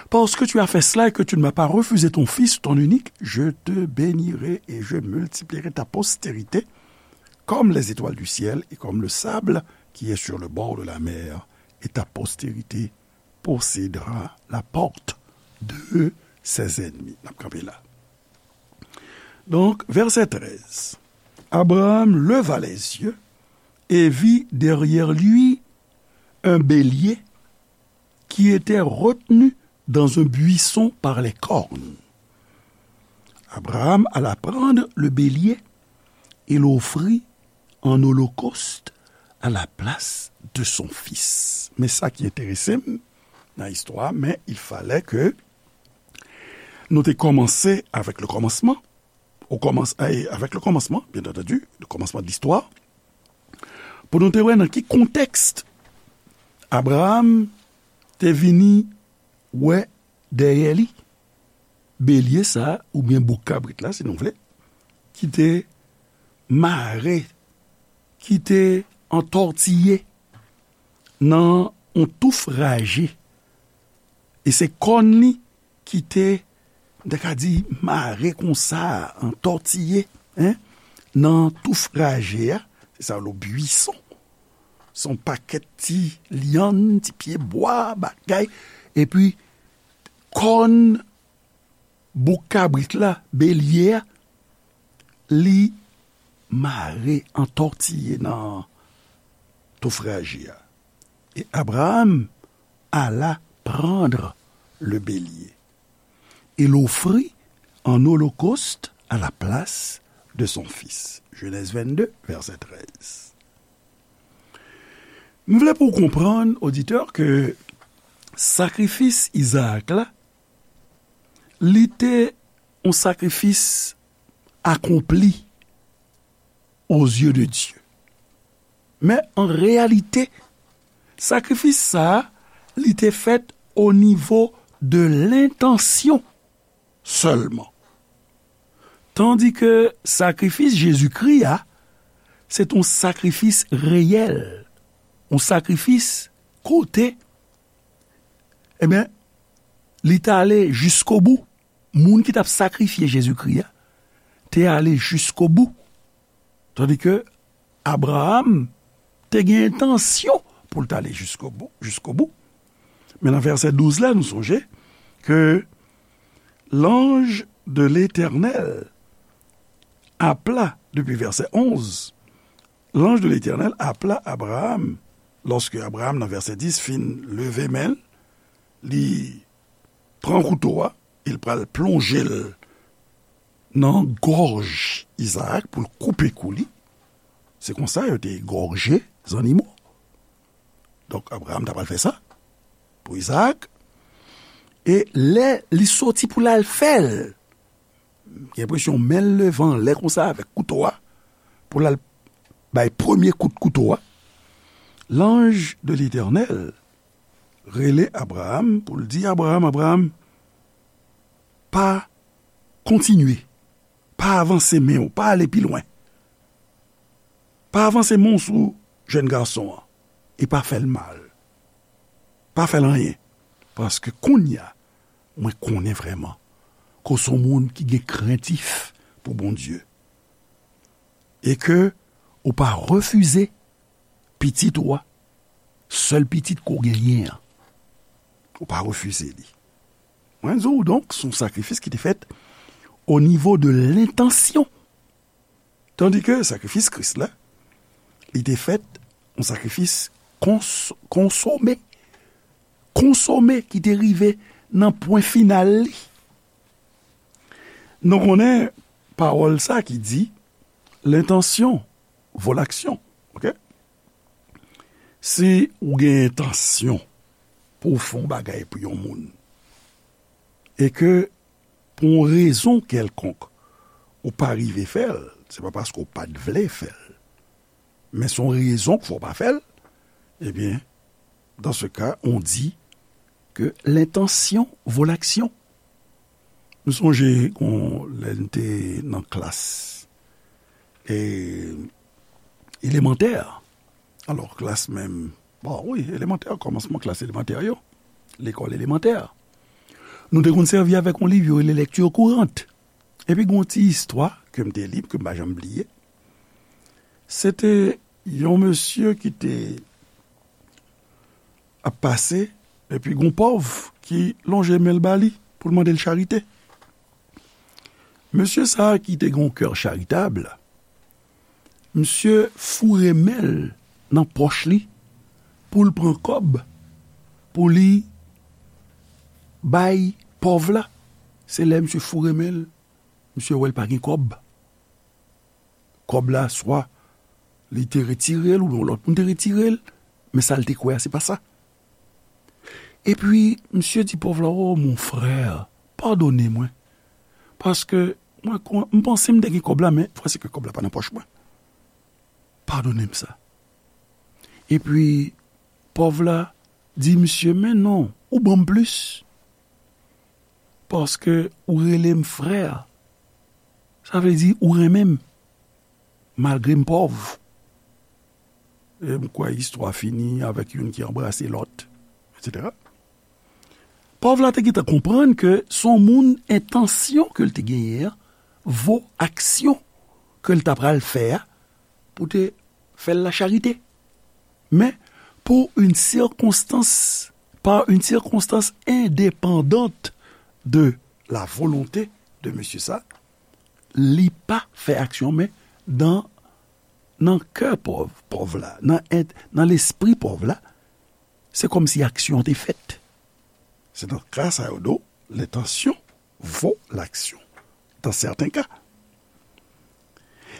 parce que tu as fait cela et que tu ne m'as pas refusé ton fils, ton unique, je te bénirai et je multiplierai ta postérité comme les étoiles du ciel et comme le sable qui est sur le bord de la mer, et ta postérité possédera la porte de ses ennemis. N ap kanpe la. Donc, verset treize. Abraham leva les yeux et vit derrière lui un bélier qui était retenu dans un buisson par les cornes. Abraham alla prendre le bélier et l'offrit en holocauste à la place de son fils. Men sa ki enterese m nan istwa, men il fallait que nou te kòmanse avec le commencement, au commence, eh, avec le commencement, bien entendu, le commencement de l'histoire, pou nou te wè nan ki kontèks Abraham te vini wè dèyè li belye sa, oubyen bouk kabrit la, si nou vle, ki te mare, ki te antòtiye nan yon touf raje. E se kòn li ki te, m ta ka di, mare konsa, antòtiye, en, nan touf raje a, se sa, le buisson. Se yon pakèt ti lyann, ti pye bwa, bagay, epi kòn bouk kabrit la, belye a, li mare, antòtiye nan touf raje a. Et Abraham alla prendre le bélier et l'offrit en holocauste à la place de son fils. Genèse vingt-deux, verset treize. M vle pou w konprann, oditè, ke sakrifis Izaak la, li te yon sakrifis akonpli aux yeux de Dieu. Men an reyalite, sakrifis sa a, li te fèt o nivo de lentansyon sèlman. Tandi ke sakrifis Jezikri a, se t on sakrifis reyèl, on sakrifis kote, ebyen, li t ale jiskobou. Moun ki t ap sakrifye Jezikri a te ale jiskobou. Tandi ke Abraham te gen entansyon pou l t ale jiskobou, jiskobou. Men nan vèsè douz la, nou sonje ke l'ange de l'Éternel appela, depi vèsè onz, l'ange de l'Éternel appela Abraham. Lòske Abraham, nan vèsè dis, fin leve men l, li pran kouto a, e l pral plonje l nan gòj Izaak pou l koupe kou li. Se konsa yo te egòje zannimo. Donk, Abraham ta pral fè sa pou Izaak. E lè li soti pou l al fè l, gen enpresyon men l leve anlè konsa avèk kouto a, pou l al bay premye kout kouto a. L'ange de l'Éternel rele Abraham pou l di, Abraham, Abraham, pa kontinye, pa avanse men w, pa ale pi lwen. Pa avanse men w sou jèn gason an, e pa fè l mal. Pa fè l anyen. Paske kounye a, mwen konnen vrèman ke w se yon moun ki gen krentif pou Bondye. E ke ou pa refize pitit ou a, sèl pitit ke w genyen an. Ou pa refize li. Mwen di w, donk, se yon sakrifis ki te fèt o nivo de lentansyon. Tandi ke sakrifis Kris la, li te fèt yon sakrifis kons-, konsome. Konsome ki te rive nan pwen final li. Nou konnen pawòl sa ki di, lentansyon vo laksyon. Oke? Si ou gen entansyon pou w fè yon bagay pou yon moun, e ke pou yon rezon kèlkonk, ou pa rive fè l, se pa paske w pa t vle fè l, men se yon rezon k fè w pa fè l, ebyen, dans ce cas, on dit que l'intention vaut l'action. M sonje kon lè n te nan klas, e, elemantè. Alò, klas menm, bon, wi, elemantè, kòmansman klas elemantè yo, lekòl elemantè. Nou te konn sèvi avèk yon liv yo rele Lecture courante. Epi gen yon ti istwa ke m te li, ke m pa janm bliye. Se te yon mesye ki te ap pase, epi gen yon pòv ki lonje men l ba li pou l mande l charite. Mesye sa a ki te gen yon kè charitab, misye foure men l nan pòch li pou l pran kòb pou li bay pòv la. Se lè misye foure men l, misye wè l pa gen kòb. Kòb la, swa li te retire l, oubyen yon lòt moun te retire l, men sa l te kwè a, se pa sa. Epi, misye di pòv la, "O, mon frè, padone mwen. Paske mwen, kon- m panse m te gen kòb la, men vwasi ke kòb la pa nan pòch mwen. Padone m sa." Epi, pòv la di misye, "Men non, ou ban m plis. Paske ou rele m frè. Sa vle di ou renmen m, malgre m pòv." E m kwè istwa fini avèk youn ki anbrase lòt, etsetera. Pòv la te gentan konprann ke se yon moun entansyon ke l te genyen an vo aksyon ke l ta pral fè a pou te fè l lacharite. Men, pour une circonstance, par une circonstance indépendante de la volonté de mesye sa, li pa fè aksyon, men dan, nan kè pòv, pòv la, nan, ent- nan lespri pòv la, se kòmsi aksyon an te fèt. Se nan ka sa yo do, l'intention vaut l'action, dans certains cas.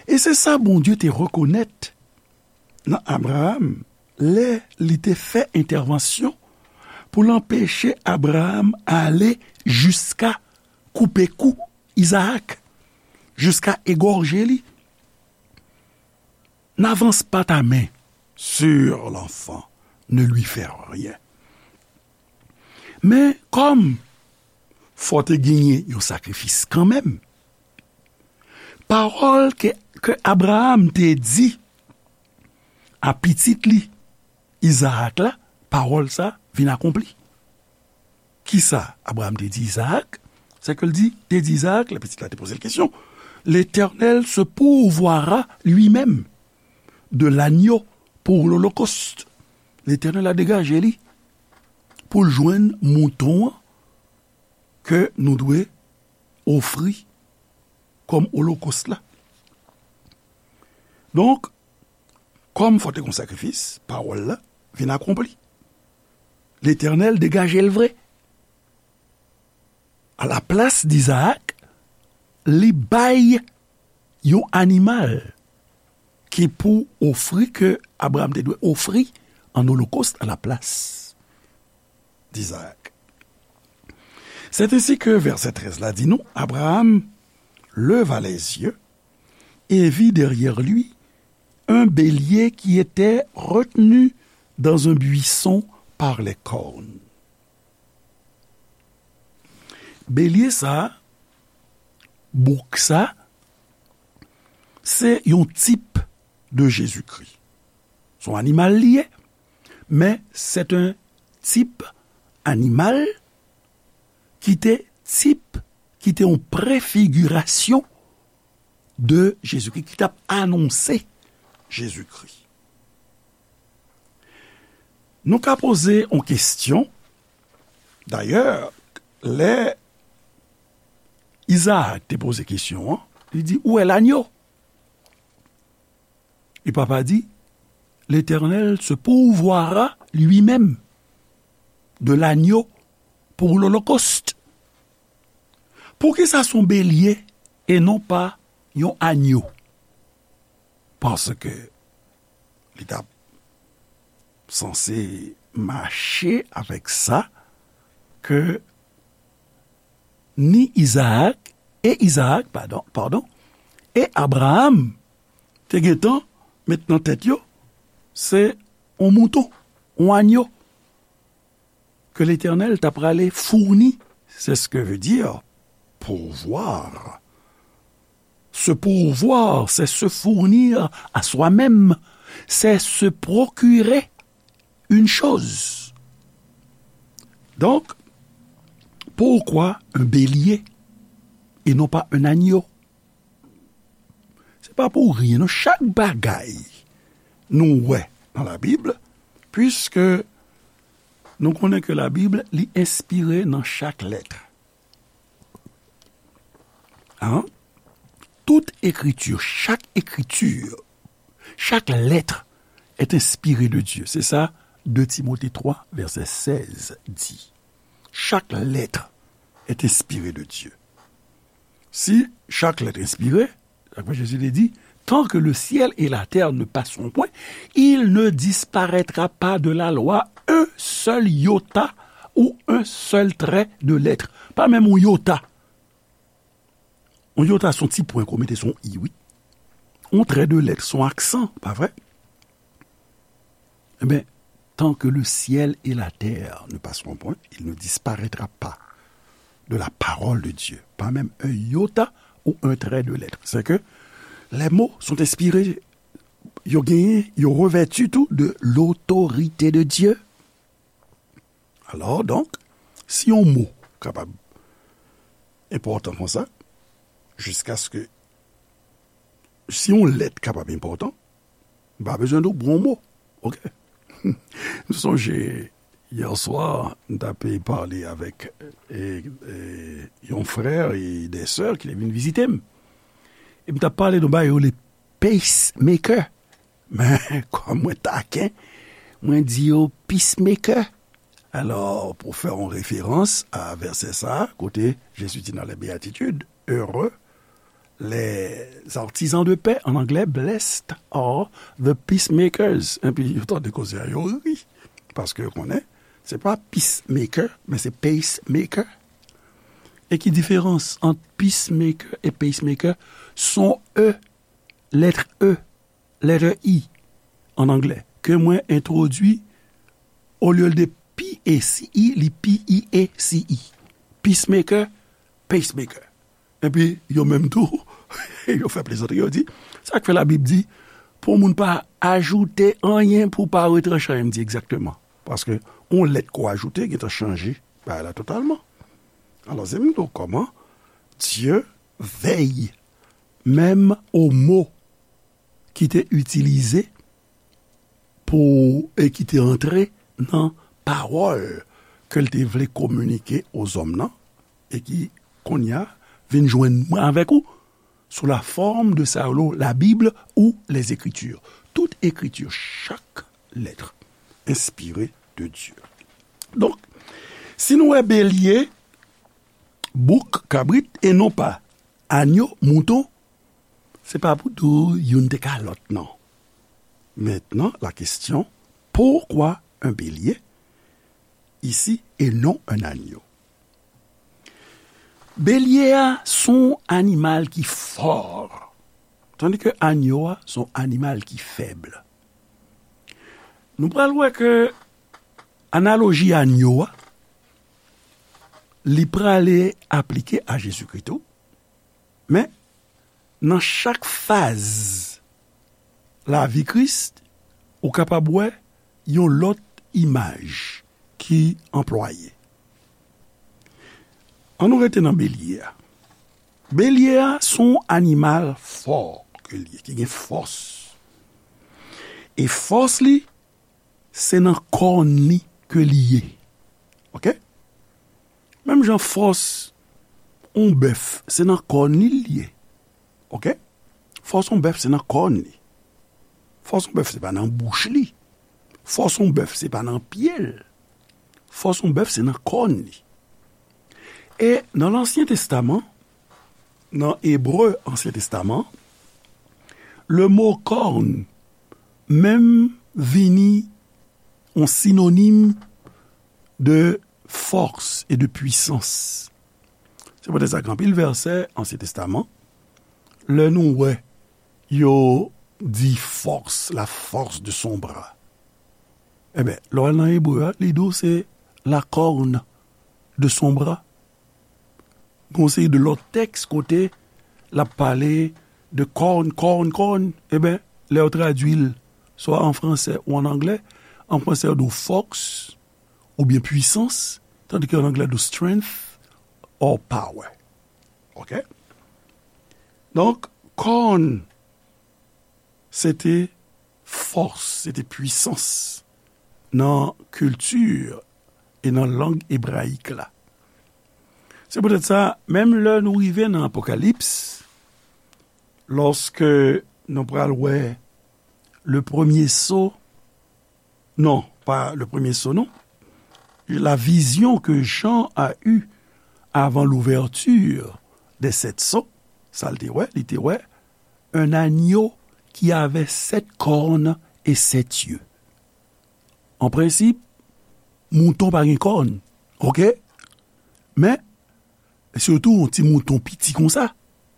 E se sa Bondye te rekonèt nan Abraram lè li te fè entèvansyon pou l anpeche Abraram ale jiska koupe kou Izaak, jiska egòje li. N'avance pas ta main sur l'enfant, ne lui fais rien. Men kòm fò te genyen yon sakrifis kanmenm, pawòl ke, ke Abraram te di a pitit li, Izaak la, pawòl sa vin akonpli. Kisa Abraram te di Izaak? Se ke l di, te di Izaak, lè pitit la te poze l kesyon, L'Éternel se pourvoira lui-même de l'agneau pour l'holocauste. Letènèl la degaje li pou l jwenn mouton an ke nou dwe ofri kòm olokòs la. Donk, kòm fò te gon sakrifis, pawòl la vin akonpli. Letènèl degaje l vre. Alaplas d'Izaak, li bay yon animal ki pou ofri, ke Abraram te dwe ofri an olokòs alaplas d'Izaak. C'est ainsi que verset treize la di nou, Abraham leva les yeux et vit derrière lui un bélier qui était retenu dans un buisson par les cornes. Belye sa, bouk sa, se yon tip de Jezikri. Se yon animal li ye, men se yon tip animal ki te tip, ki te yon prefigirasyon de Jezikri, ki t ap anonse Jezikri. Nou ka poze yon kesyon. Dayè, lè Izaak te poze kesyon an, li di, "Où est l'agneau?" E papa di, "L'Éternel se pourvoira lui-même de l'agneau pour l'holocauste." Poukisa se yon belye e non pa yon anyo? Paske li t ap sanse mache avèk sa ke ni Izaak, e Izaak, padon, padon, e Abraham te gentan met nan tèt yo, se yon mouton, yon anyo ke Letènèl ta prale founi. C'est ce que veut dire pourvoir. Se pourvoir, c'est se fournir à soi-même, c'est se procurer une chose. Donc, pourquoi un bélier et non pas un agneau? Se pa pou ryen, non. Chak bagay nou wè nan Labib, puiske nou konnen ke Labib, li enspire nan chak lèt. An? Toute écriture, chaque écriture, chaque lettre est inspirée de Dieu. C'est ça, deux Timothée trois, verset seize dit. Chaque lettre est inspirée de Dieu. Si chak lèt enspire, sa vle di, tant que le ciel et la terre ne passeront point, il ne disparaîtra pas de la loi un seul iota ou un seul trait de lettre. Pa menm yon iota. Yon iota se yon ti pwen ke w mete sou yon i, wi. Yon trait de lettre se yon aksan, pa vre? Eh bien, tant que le ciel et la terre ne passeront point, il ne disparaîtra pas de la parole de Dieu. Pas même un iota ou un trait de lettre. C'est que les mots sont inspirés, yo genyen, yo revêtus tout de l'autorité de Dieu. Alors, donc, si yon mo kapab enpòtan konsa, jiskaske, si yon lèt kapab enpòtan, m pa bezwen di w bon mo. Ok? M sonje, yè swa, m t ap pale avèk, e, e, yon frè e de sè ki te vin vizite m. E m t ap pale de yon bagay yo rele pacemaker. Men, kòm mwen taken, mwen di yo peacemaker. Alò, pou fè yon referans a vèsè sa a, kote Jezi di nan les Béatitudes, heureux les artisans de paix, an anglè, blessed are the peacemakers. Epi, yo tande koze a, yo ri. Paske yo konnen, se pa peacemaker, men se pacemaker. E ki diferans ant peacemaker e pacemaker? Son E, lèt E, letter E an anglè, ke mwen entwodui, olye de P A C E, li P E A C E. Peacemaker, pacemaker. Epi, yo menm tou, yo fè plezantri, yo di, sa k fè Labib di, pou moun pa ajoute anyen, pou pa retranche anyen, m di egzakteman. Paske, yon lèt ke w ajoute, gentan chanje bagay la totalman. Alò, se m di w kòman Dieu veille même aux mots ki te itilize pou, e ki te antre nan pawòl ke l te vle kominike ozòm nan, e ki, kounye a, vin jwenn mwen avèk ou sous la forme de sa yo rele la Bible ou les Écritures. Tout écriture, chaque lettre, inspirée de Dieu. Donk, si nou wè belye, bouk, kabrit, e non pa anyo, mouton, se pa pou di w youn te ka lòt, non. Maintenant, la question, pourquoi un bélier ici et non un agneau? Belye a se yon animal ki fò, tandike anyo a se yon animal ki fèb. Nou pral wè ke analoji anyo a, li prale aplike a Jezikri tou, men nan chak faz lavi Kris, ou kapab wè yon lòt imaj ki anplwaye. Ann nou rete nan belye a. Belye a se yon animal fò ke li ye, ki gen fòs. E fòs li, se nan kòn li ke li ye. Ok? Menm jan fòs yon bèf, se nan kòn li li ye. Ok? Fòs yon bèf, se nan kòn li. Fòs yon bèf, se pa nan bouch li. Fòs yon bèf, se pa nan pye l. Fòs yon bèf, se nan kòn li. E nan Lansyen Testaman, nan Ebre Ansyen Testaman, le mo corne menm vini yon sinonim de force et de puissance. Se poutèt sa gen anpil vèsè Ansyen Testaman, lè nou wè yo di force, la force de son bras. Enben, lè w al nan Ebre a, li di w se la corne de son bras. Gon seri de lòt tèks kote l ap pale de corne, corne, corne. Enben, lè yo tradui l, swa an fransè ou an anglè, an fransè yo di w force, oubyen puissance, tandike an anglè yo di w strength or power. Ok? Donk, corne, se te fòs, se te pwisans nan kilti e nan lang ebrayik la. Se poutèt sa, menm lè nou rive nan Apokalips, Lòske nou pral wè le premier sceau, non, pas le premier sceau, non, la vision que Jean a eue avant l'ouverture des sept sceaux, sa l te wè, li te wè un agneau qui avait sept cornes et sept yeux. An prensip, mouton pa gen kòn, oke? Men, sitou yon ti mouton piti konsa,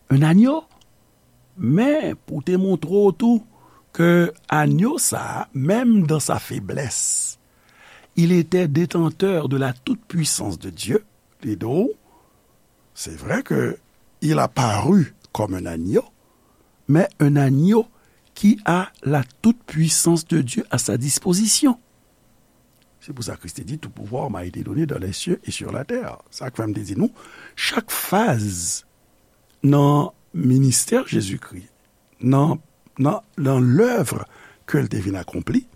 un agneau. Men, pou te montre w tou ke agneau sa, même dans sa faiblesse, il était détenteur de la toute-puissance de Dieu, li di w, c'est vrai que il a paru comme un agneau, mais un agneau qui a la toute-puissance de Dieu à sa disposition. Se pou sa Kris te di, tout pouvoir m'a été donné dans les cieux et sur la terre. Sa k fè m te di nou, chak faz nan ministè Jezikri, nan, nan, nan lèv ke l te vin akonpli,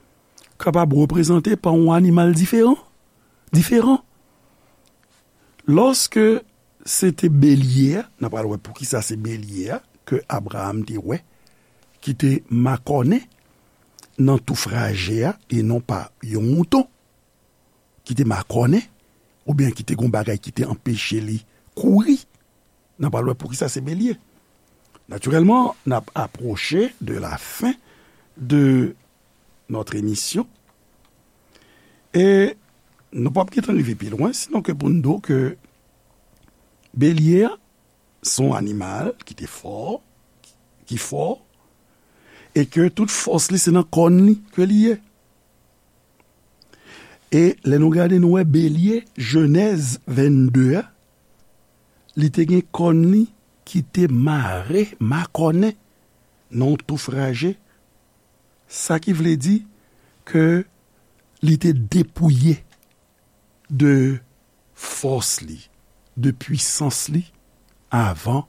kapab reprezante pa yon animal diferan, diferan. Lòske se te belye a, n a pral wè poukisa se belye a ke Abraram te wè, ki te makònen nan tou fraje a, e non pa yon mouton ki te makònen, oubyen ki te gon bagay ki te anpeche li kouri. N a pral wè poukisa se belye. Naturèlman, n ap apwoche de la fin de notre émission. E nou p ap gentan rive pi lwen, sinon ke pou n di w ke belye a se yon animal ki te fò, ki fò, e ke tout fòs li se nan kòn li ke li ye. E lè nou gade, nou wè belye, Jenèz vennde a, li te gen kòn li ki te mare, makònen, nan yon tou fraje. Sa ki vle di ke li te depouye de fòs li, de pwisans li, avan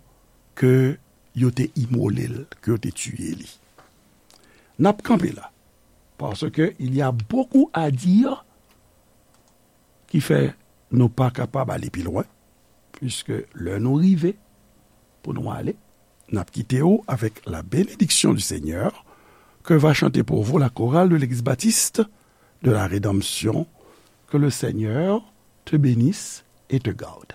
ke yo te imole l, ke yo te tiye li. N ap kanpe la, parce que il y a beaucoup à dire ki fè nou pa kapab ale pi lwen, puisque lè nou rive pou nou ale, n ap kite w avec la bénédiction du Seigneur que va chanter pour vous la chorale de l'Église baptiste de la Rédemption. Que le Seigneur te bénisse et te garde.